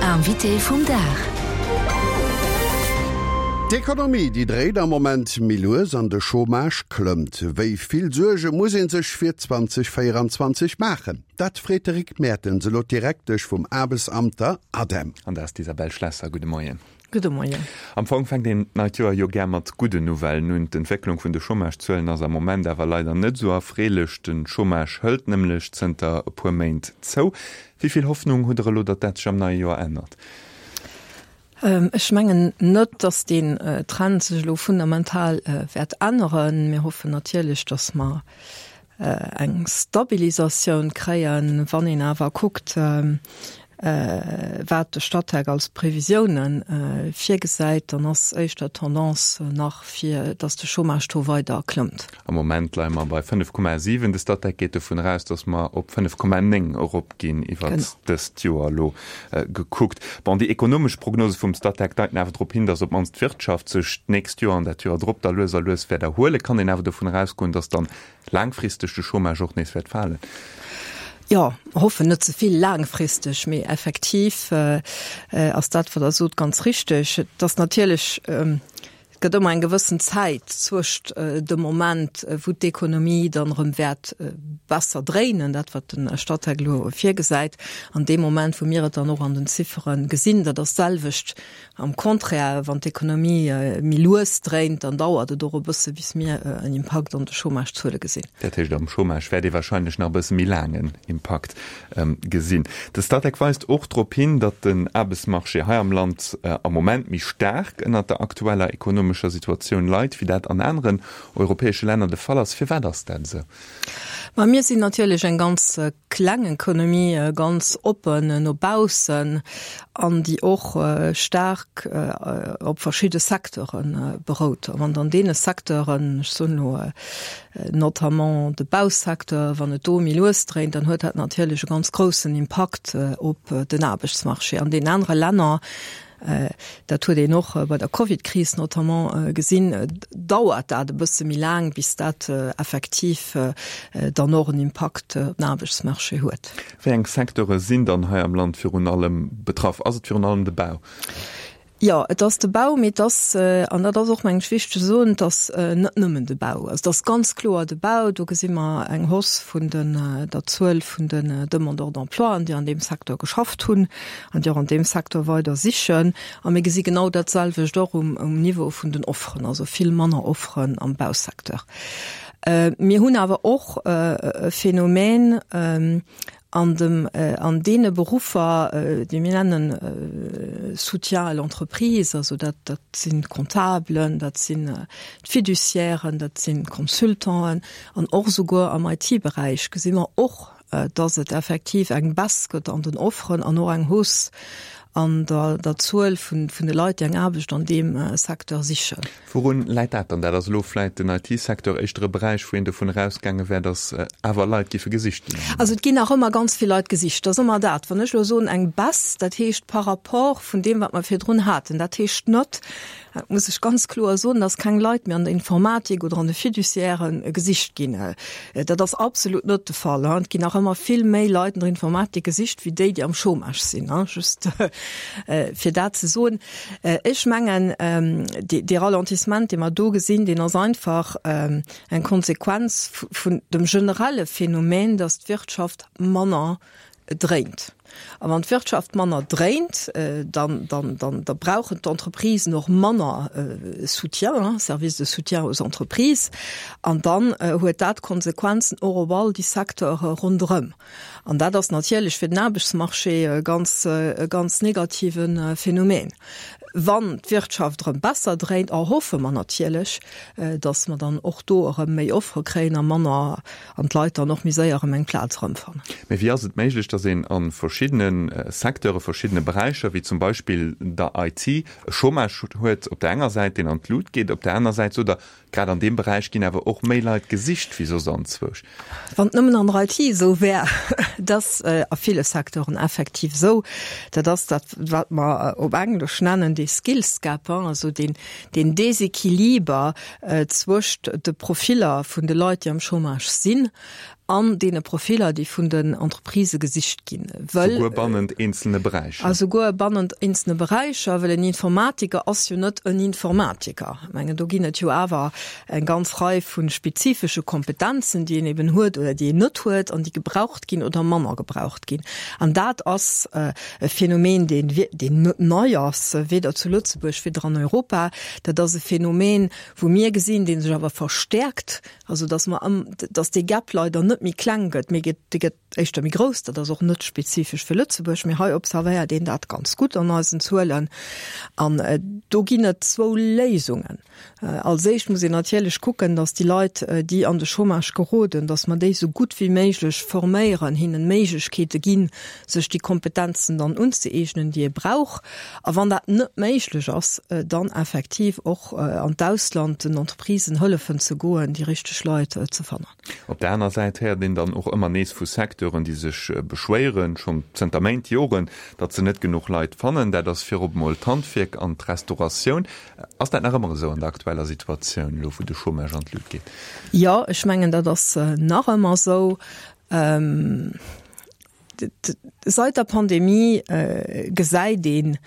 Invité vum Dag. D'Ekonomie, déi dréit am Moment méi lues an de Chômage klëmmt. Wéi vill Suerge muss ee sech fir 2024 maachen? Dat freet de Rick Mertens elo d'Direktesch vum Aarbechtsamt, der ADEM. An dat ass d'Isabelle Schlesser. Gudde Moien. Gudde Moien. Am Fong fänkt een d'neit Joer jo gär mat gudden Nouvellen un. D'Entwécklung vun de Chômagezuelen ass am Moment awer leider net esou erfreelech. De Chômage hëlt nämlech zënter e puer Méint zou. Wéi vill Hoffnung hutt Der elo, datt dat sech am neie Joer ännert? Ech mengen net, datt deen Trend sech elo fundamental wäert änneren. Mir hoffen natierlech, datt mer eng Stabilisatioun kréien. Wann een awer kuckt, wat de Statec als Previsiounen virgesäit, dann ass éischter d'Tendance nach fir, datt de Chômage-Taux weider klëmmt. Am Moment leie mer bei 5,7. De Statec geet dovun eraus, datt mer op 5,9 eropginn iwwert dëst Joer elo gekuckt. Bon, déi ekonomesch Prognose vum Statec deiten awer drop hin, datt op d'mannst d'Wirtschaft sech d'nächst Joer an dat Joer drop da lues a lues wäert erhuelen. Kann een awer dovun erausgoen, datt dann laangfristeg de Chômage och nees wäert falen? Jo, hoffen net ze vill laangfristeg, mee effektiv ass dat, wat Der sot, ganz richteg. Et ass natierlech, et gëtt ëmmer eng gewëssen Zäit zwëscht dem Moment, wou d'Ekonomie dann erëm wäert besser dréinen, dat wat de Statec elo virgesäit, an deem Moment, wou mir et dann och an den Ziffere gesinn. Dat ass d'selwecht Am Contraire, wann d'Ekonomie méi lues dréint, dann dauert et och e bësse bis mir en Impakt an de Chômage-Zuele gesinn. Dat heescht, am Chômage wäert ee warscheinlech nach e bësse méi laang en Impakt gesinn. De Statec weist och drop hin, datt den Aarbechtsmarché hei am Land am Moment méi staark ënnert der aktueller ekonomescher Situatioun leit, wéi dat an aneren europäesche Länner de Fall ass. Firwat ass dat esou? Ma mir sinn natierlech eng ganz kleng Economie, ganz oppen no baussen an déi och staark op verschidde Secteure berout. A wann an deene Secteuren, ech soen elo notamment de Bausecteur, wann et do méi lues dréint, dann huet dat natierlech e ganz groussen Impakt op den Aarbechtsmarché. An deenen anere Länner Dat huet een och bei der Covidkris notamment gesinn, dauert dat e bësse méi laang, bis dat effektiv dann och en Impakt op den Aarbechtsmarché huet. Wéi eng Secteure sinn dann hei am Land virun allem betraff? Ass et virun allem de Bau? Jo, et ass de Bau, mee et ass, an dat ass och, mengen ech, wichteg ze soen, et ass net nëmmen de Bau. Also et ass ganz kloer de Bau. Do gesi mer eng Hausse vun der Zuel vun den Demandeurs d'emploien, déi an deem Secteur geschafft hunn. an déi och an deem Secteur weider sichen. A mir gesi genau dat selwecht och um Niveau vun den Offeren, also vill manner Offeren am Bausecteur. Mir hunn awer och e Phänomen an dem, an deene Beruffer, déi mir nennen Soutien à l'entreprise, also dat, dat sinn d'Comptabelen, dat sinn d'Fiduciairen, dat sinn d'Consultanten an och esouguer am IT-Beräich gesi mer och dass et effektiv eng Baisse gëtt an den Offeren an och eng Hausse an der der Zuel vun vun de Leit, déi eng Aarbecht an deem Secteur sichen. Wourun läit dat dann? Dat ass elo vläit den IT-Secteur éischter e Beräich, wou een dovun erausgaange wär, dass awer Leit giffe gesicht ginn am Moment. Also et ginn nach ëmmer ganz vill Leit gesicht. Dat ass ëmmer dat, wann ech elo soen eng Baisse, dat heescht par rapport vun deem, wat mer virdrun haten. Dat heescht net, Dat muss ech ganz kloer soen, dass keng Leit méi an der Informatik oder an de Fiduciairen gesicht ginn. Dat ass absolut net de Fall. Et ginn nach ëmmer vill méi Leit an der Informatik gesicht wéi déi, déi am Chômage sinn, just fir dat ze soen. Ech mengen, dee Ralentissement, dee mer do gesinn, deen ass einfach eng Konsequenz vun dem generelle Phänomen, dass d'Wirtschaft manner dréint. A wann d'Wirtschaft manner dréint, dann, dann, dann, da brauchen d'Entreprisen och manner Soutien, Service de soutien aux entreprises. An dann huet dat Konsequenzen och op all déi Secteure ronderëm. An dat ass natierlech fir den Aarbechtsmarché e ganz, e ganz negative Phänomen. Wann d'Wirtschaft erëm besser dréint, erhoffe mer natierlech, datt mer dann och do erëm méi Offere kréien a manner an d'Leit dann och méi séier erëm eng Plaz erëmfannen. Mee wéi ass et méiglech, datt een a verschiddene Secteure, verschiddene Beräicher, wéi zum Beispill der IT, e Chômage huet op der enger Säit, deen an d'Lut geet, op der aner Säit sot Der, grad an deem Beräich ginn awer och méi Leit gesicht wéi soss anzwousch? Wann et nëmmen an der IT esou wär. Et ass a ville Secteuren effektiv esou. Dat ass dat, wat mer op Englesch nennen dee Skills Gap, also deen Desequiliber zwëscht de Profiller vun de Leit, déi am Chômage sinn. An deene Profiller, déi vun den Entreprisë gesicht ginn, wëll. Souguer bannent eenzelne Beräicher. A souguer bannent eenzelne Beräicher, well en Informatiker ass jo net en Informatiker. Ech mengen, do ginn et jo awer eng ganz Rei vu spezifesche Kompetenzen, déi een eben huet oder déi een net huet an déi gebraucht ginn oder manner gebraucht ginn. An dat ass e Phänomen, deen, deen net nei ass, weder zu Lëtzebuerg, weder an Europa. Dat ass e Phänomen, wou mir gesinn, dee sech awer verstärkt, Also dass mer ëm, dass dee Gap leider net méi kleng gëtt, mee gëtt, dee gëtt éischter méi grouss. Dat ass och net spezifesch fir Lëtzebuerg, mee hei observéiert een dat ganz gutt an eisen Zuelen. An do ginn et zwou Léisungen. Als éischt muss een natierlech kucken, dass déi Leit, déi an de Chômage geroden, dass mer déi esou gutt wéi méiglech forméieren, hinnen Méiglechkeete ginn, sech déi Kompetenzen dann unzëeegnen, déi ee brauch. A wann dat net méiglech ass, dann effektiv och an d'Ausland den Entreprisen hëllefen ze goen, déi richteg Leit ze fannen. Op der aner Säit héiert een dann och ëmmer nees vu Secteuren, déi sech beschwéieren, schonn zënter Méint, Joren, datt se net genuch Leit fannen. Dat ass virop emol d'Handwierk an d'Restauratioun. Ass dat nach ëmmer esou an der aktueller Situatioun, elo wou de Chômage an d'Lut geet? Jo, ech mengen, dat ass nach ëmmer esou. Seit der Pandemie gesäit een,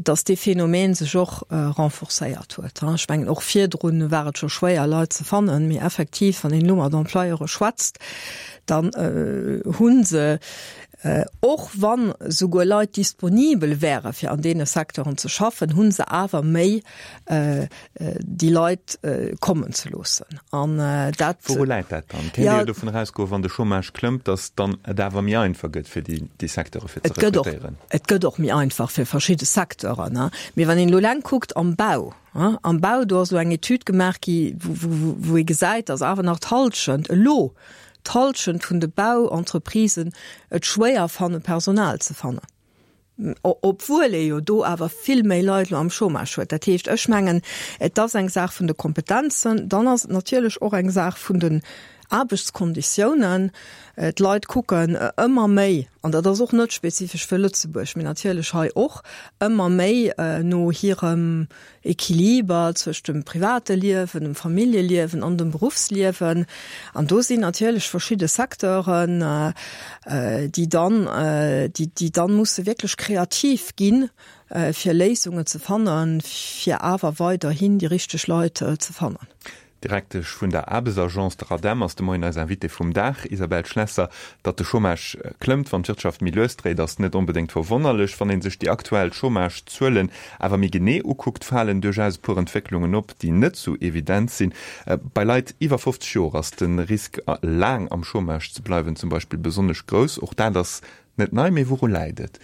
datt dee Phänomen sech och renforcéiert huet. Ech mengen, och virdrun war et scho schwéier, Leit ze fannen, mee effektiv, wann een elo mat Employeure schwätzt, dann hu se, och wann souguer Leit disponibel wäre fir an deene Secteuren ze schaffen, hu se awer méi déi Leit kommen ze loossen. An dat. Wouru läit dat dann? Kéint ee jo dovun erausgoen, wann de Chômage klëmmt, datt dann et awer méi einfach gëtt fir déi Secteure fir ze rekrutéieren. Et gëtt och méi einfach fir verschidde Secteuren. Mee wann een elo eleng kuckt am Bau, am Bau, do ass elo eng Etüd gemaach gi wou ee gesäit, datt awer nach d'Hallschent elo, d'Hallschent vun de Bauentreprisen et schwéier fannen, Personal ze fannen. Obwuel ee jo do awer vill méi Leit elo am Chômage huet. Dat heescht, ech mengen, et ass eng Saach vun de Kompetenzen, dann ass et natierlech och eng Saach vun den Aarbechtskonditiounen. D'Leit kucken ëmmer méi, an dat ass och net spezifesch fir Lëtzebuerg, mee natierlech hei och, ëmmer méi no hirem Equiliber zwëscht dem private Liewen, dem Familljeliewen an dem Beruffsliewen. An do sinn natierlech verschidde Secteuren, déi dann, déi dann musse wierklech kreativ ginn, fir Léisungen ze fannen, fir awer weiderhin déi richteg Leit ze fannen. D'Direktesch vun der Aarbechtsagence, der ADEM, ass de Moien eis Invitée vum Dag. Isabelle Schlesser, Datt de Chômage klëmmt, wann d'Wirtschaft méi lues dréit, ass net onbedéngt verwonnerlech. Wann ee sech déi aktuell Chômagezuelen awer méi genee ukuckt, falen duerchaus e puer Entwécklungen op, déi net sou evident sinn. Bei Leit iwwer 50 Joer ass de Risk, laang am Chômage ze bleiwen, zum Beispill besonnesch grouss. Och dat ass Net nei, mee wouru läit et?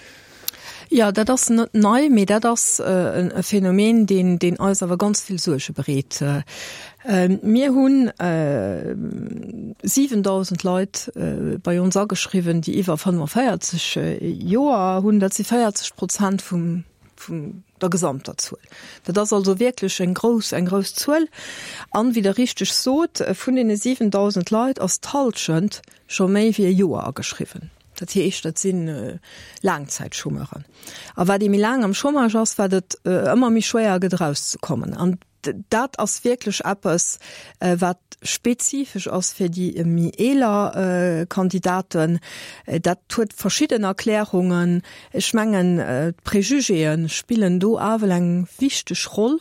Jo, dat ass net nei, mee dat ass e Phänomen, deen, deen eis awer ganz vill Suerge bereet. Mir hunn 7.000 Leit bei ons ageschriwwen, déi iwwer 45 Joer hunn. Dat si 40 Prozent vum, vum der gesamter Zuel. Dat ass also wierklech eng grouss, eng grouss Zuel. An, wéi Der richteg sot, vun deene 7.000 Leit ass d'Hallschent scho méi wéi e Joer ageschriwwen. Dat heescht, dat si Laangzäitchômeuren. A wat ee méi laang am Chômage ass, wat et ëmmer méi schwéier gëtt erauszekommen. An dat ass wierklech eppes, wat spezifesch ass fir déi méi eeler Kandidaten. Dat huet verschidden Erklärungen. Ech mengen, d'Prejugéë spillen do awel eng wichteg Roll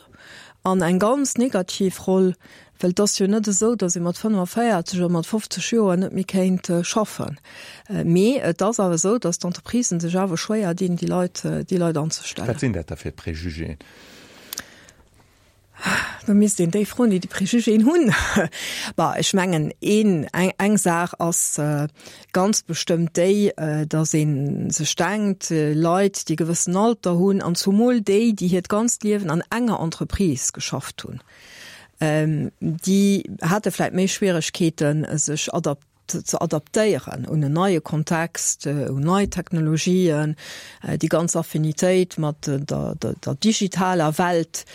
an eng ganz negativ Roll, Well et ass jo net esou, datt ee mat 45 oder mat 50 Joer net méi kéint schaffen. Mee et ass awer esou, datt d'Entreprisen sech awer schwéier dinn, déi Leit, déi Leit anzestellen. Wat sinn dat da fir Préjugéen? Da misst een déi froen, déi déi Préjugéen hunn. Bah, ech mengen, een, eng, eng Saach ass ganz bestëmmt déi, datt ee sech denkt, Leit, déi e gewëssen Alter hunn, an zumol déi, déi hiert ganzt Liewen an enger Entreprise geschafft hunn, Déi hate vläit méi Schwieregkeeten, sech ze adaptéieren un en neie Kontext, un nei Technologien. Déi ganz Affinitéit mat der digitaler Welt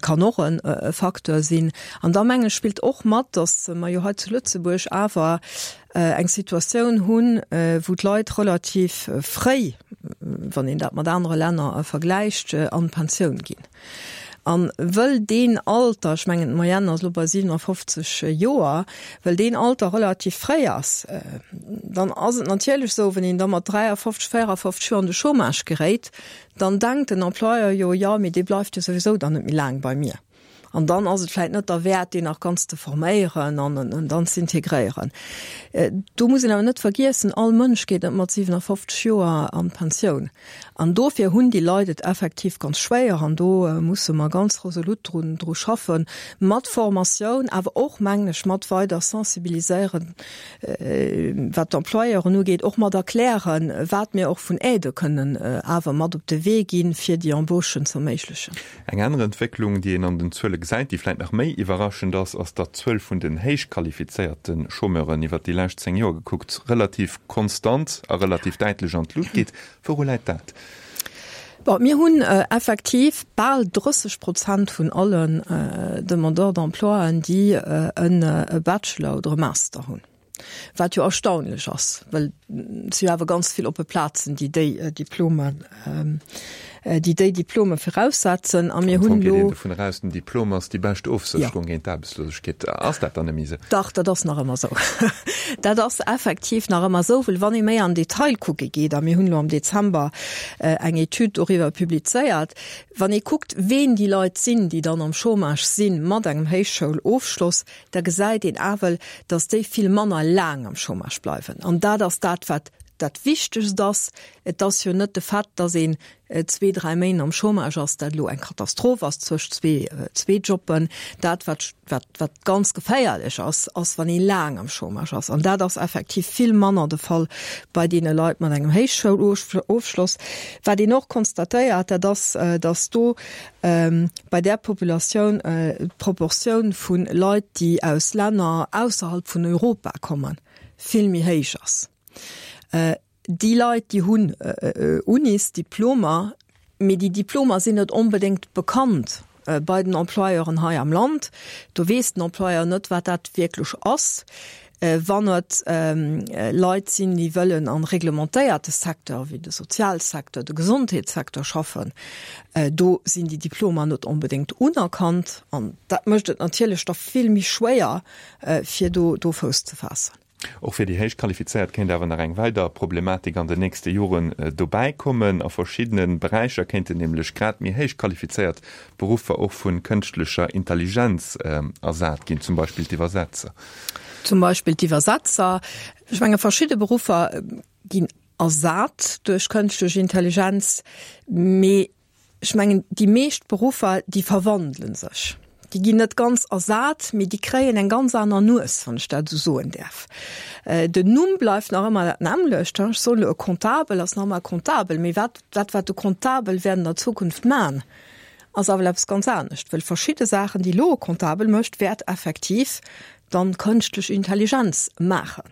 kann och e Facteur sinn. An da mengen ech spillt och mat, datt mer jo hei zu Lëtzebuerg awer eng Situatioun hunn, wou d'Leit relativ fréi, wann een dat mat anere Länner vergläicht, an d'Pensioun ginn. An wëll deen Alter, ech mengen d'Moyenne ass elo bei 57 Joer, wëll deen Alter relativ fréi ass, dann ass et natierlech esou, wann een da mat 53, 54 Joer an de Chômage geréit, dann denkt den Employeur jo, jo, mee dee bleift jo souwisou dann net méi laang bei mir. An dann ass et vläicht net derwäert, deen nach ganz ze forméieren an en dann z'integréieren. Do muss een awer net vergiessen, all Mënsch geet net mat 57 Joer an d'Pensioun. An dofir hunn déi Leit et effektiv ganz schwéier. An do musse mer ganz resolut drun, dru schaffen, mat Formatioun, awer och, mengen ech, mat weider sensibiliséieren, wat d'Employeuren ugeet, och mat erklären, wat mir och vun Aidë kënnen awer mat op de Wee ginn, fir déi Embauchen z'erméiglechen. Eng aner Entwécklung, déi een an den Zuele gesäit, déi vläit nach méi iwwerraschend ass, ass, datt d'Zuel vun den héichqualifizéierte Chômeuren iwwert déi lescht 10 Joer gekuckt relativ konstant a relativ däitlech an d'Lut geet. Wouru läit dat? Bon, mir hunn effektiv bal 30 Prozent vun allen Demandeurs d'emploien, déi e Bachelor oder e Master hunn. Wat jo erstaunlech ass, well et si jo awer ganz vill oppe Plazen, déi déi Diplomen, déi déi Diplome viraussetzen. A mir hunn elo. Am Fong geet een dovun eraus, den Diplom ass déi bescht Ofsécherung géint d'Aarbechtslosegkeet. Ass dat dann net méi esou? Dach, dat ass nach ëmmer esou. Dat ass effektiv nach ëmmer esou, well wann ee méi an Detail kucke geet, a mir hunn elo am Dezember eng Etüd doriwwer publizéiert, wann ee kuckt, ween déi Leit sinn, déi dann am Chômage sinn mat engem Héichschoulofschloss, da gesäit een awel, datt déi vill manner laang am Chômage bleiwen. An dat ass dat, wat dat Wichtegst ass. Et ass jo net de Fait, datt een zwee, dräi Méint am Chômage ass, dat elo eng Katastroph ass zwëscht zwee, zwee Jobben. Dat, wat, wat, wat ganz geféierlech ass, ass, wann ee laang am Chômage ass. An dat ass effektiv vill manner de Fall bei deene Leit mat engem Héichschoulofschloss. Wat een och konstatéiert, dat ass, datt do bei där Populatioun d'Proportioun vu Leit, déi aus Länner ausserhalb vun Europa kommen, vill méi héich ass. Déi Leit, déi hunn Unisdiplomer, mee déi Diplomer sinn net onbedéngt bekannt bei den Employeuren hei am Land. Do weess den Employeur net, wat dat wierklech ass. Wann et Leit sinn, déi wëllen am reglementéierte Secteur, wéi de Sozialsecteur, de Gesondheetssecteur schaffen, do sinn déi Diplomer net onbedéngt unerkannt. An dat mécht et natierlech da vill méi schwéier, fir do do Fouss ze faassen. Och fir déi héich Qualifizéiert kéint awer nach eng weider Problematik an den nächste Joren dobäi kommen. A verschiddene Beräicher kéinten nämlech grad méi héich qualifizéiert Beruffer och vu kënschtlecher Intelligenz ersat ginn, zum Beispill d'Iwwersetzer. Zum Beispill d'Iwwersetzer. Ech menge verschidde Beruffer ginn ersat duerch kënschtlech Intelligenz, mee ech mengen déi meescht Beruffer, déi verwandele sech. Déi ginn net ganz ersat, mee déi kréien eng ganz aner Nues, wann ech dat esou soen däerf. Den Numm bleift nach ëmmer dat nämmlecht. Ech soen elo, e Comptabel ass nach ëmmer e Comptabel, mee wat dat wat de Comptabel wäert an der Zukunft man, ass awer eppes ganz anescht, well verschidde Saachen, déi elo e Comptabel mécht, wäert effektiv dann d'kënschtlech Intelligenz maachen.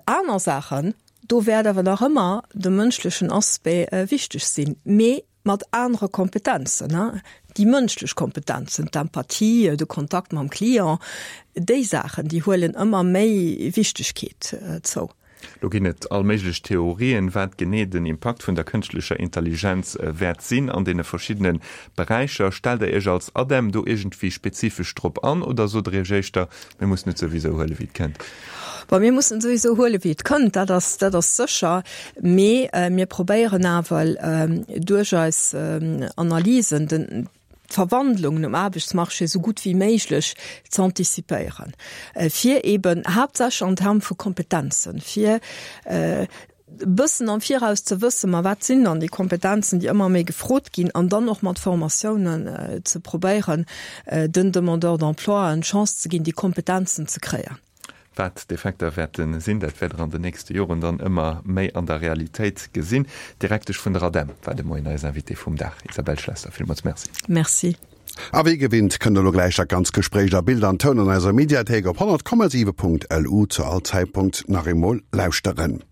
Aner Saachen, do wäert awer nach ëmmer de mënschlechen Aspect wichteg sinn, mee mat anere Kompetenzen, déi mënschlech Kompetenzen, d'Empathie, de Kontakt mam Client, déi Saachen, déi huelen ëmmer méi Wichtegkeet zou. Lo ginn et all méiglech Theorien, wat genee den Impakt vun der kënschtlecher Intelligenz wäert sinn an deene verschiddene Beräicher. Stellt der Iech als ADEM do iergendwéi spezifesch drop an oder sot der Iech éischter, mir mussen et souwisou huelen, wéi et kënnt? Bon, mir mussen et souwisou huelen, wéi et kënnt, dat ass, dat ass sécher. Mee mir probéieren awer duerch eis Analysen den, d'Verwandlungen um Aarbechtsmarché esou gutt wéi méiglech ze antizipéieren, fir eben haaptsächlech an Terme vu Kompetenzen, fir e bëssen am Viraus ze wëssen, ma wat sinn dann déi Kompetenzen, déi ëmmer méi gefrot ginn, an dann och mat Formatiounen ze probéieren, den Demandeurs d'emploi d'Chance ze ginn, déi Kompetenzen ze kréien. Wat d'Effekter wäerte sinn, dat wäert Der an den nächste Joren dann ëmmer méi an der Realitéit gesinn. D'Direktesch vun der ADEM war de Moien eis Invitée vum Dag, Isabelle Schlesser. Villmools Merci. Merci. A wéi gewinnt kënnt der lo gläich dat ganz Gespréich a Bild an Toun an eiser Mediathéik op 100,7.lu zu all Zäitpunkt nach eemol lauschteren.